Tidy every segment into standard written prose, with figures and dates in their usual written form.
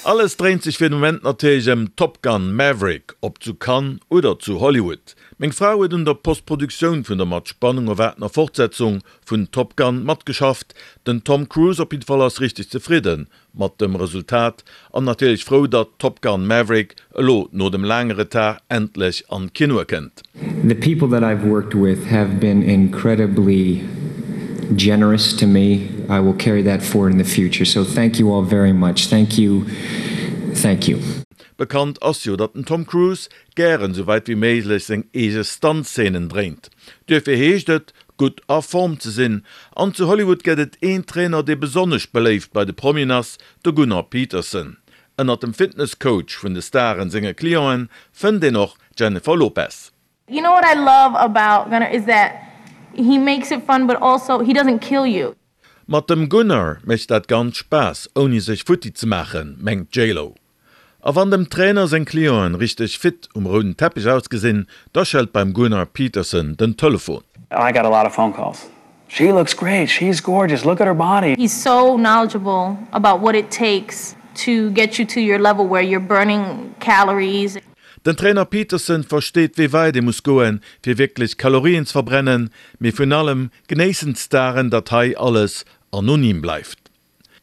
Alles dréint sech fir de Moment natierlech ëm Top Gun Maverick, ob zu Cannes oder zu Hollywood. Meng Fra huet un der Postproduktioun vun der mat Spannung erwaartener Fortsetzung vun Top Gun matgeschafft. Den Tom Cruise op jidde Fall ass richteg zefridde mat dem Resultat an natierlech frou, datt Top Gun Maverick elo no dem laange Retard endlech an d'Kinoe kënnt. The people that I've worked with have been incredibly generous to me. I will carry that forward in the future. So thank you all very much. Thank you. Thank you. Bekannt ass jo, datt den Tom Cruise gären sou wäit wéi méiglech seng eege Stunt-Szenen dréint. Duerfir heescht et, gutt a Form ze sinn. An zu Hollywood gëtt et een Trainer, dee besonnesch beléift bei de Promien ass, de Gunnar Peterson. Ënnert dem Fitness-Coach vun de Staren senge Clienten fënnt een och d'Jennifer Lopez. You know what I love about Gunnar is that he makes it fun but also he doesn't kill you. Mat dem Gunnar mécht dat Ganzt Spaass, ouni sech futti ze maachen, mengt d'J-Lo. A wann dem Trainer seng Clienten richteg fit um rouden Teppech ausgesinn, da schellt beim Gunnar Peterson den Telefon. I got a lot of phone calls, She looks great, she's gorgeous, look at her body. He's so knowledgeable about what it takes to get you to your level where you're burning calories. Den Trainer Peterson versteet wéi weit ee muss goen, fir wierklech Kalorien ze verbrennen, mee vun allem genéissen d'Staren, datt hei alles anonym bleift.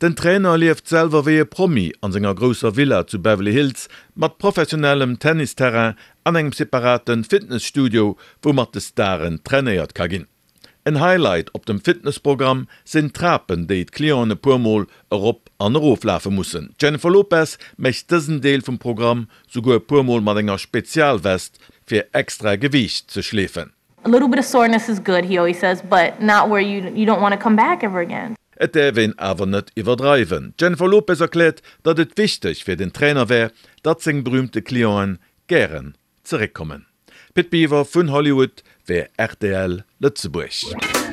Den Trainer lieft selwer wéi e Promi an senger grousser Villa zu Beverly Hills mat professionellem Tennisterrain an engem separate Fitnesstudio, wou mat de Staren trainéiert ka ginn. En Highlight op dem Fitnessprogramm sinn d'Trapen, déi d'Clienten e puer Mol erop an erof lafe mussen. D'Jennifer Lopez mécht dësen Deel vum Programm souguer e puer Mol mat enger Spezialvest fir extra Gewiicht ze schleefen. A little bit of soreness is good, he always says, but not where you you don't wanna come back ever again. Et däerf een awer net iwwerdreiwen. D'Jennifer Lopez erkläert, datt et wichteg fir den Trainer wär, datt seng berüümte Clienten gären zeréckkommen. Pit Biwer vun Hollywood fir rtl Lëtzebuerg.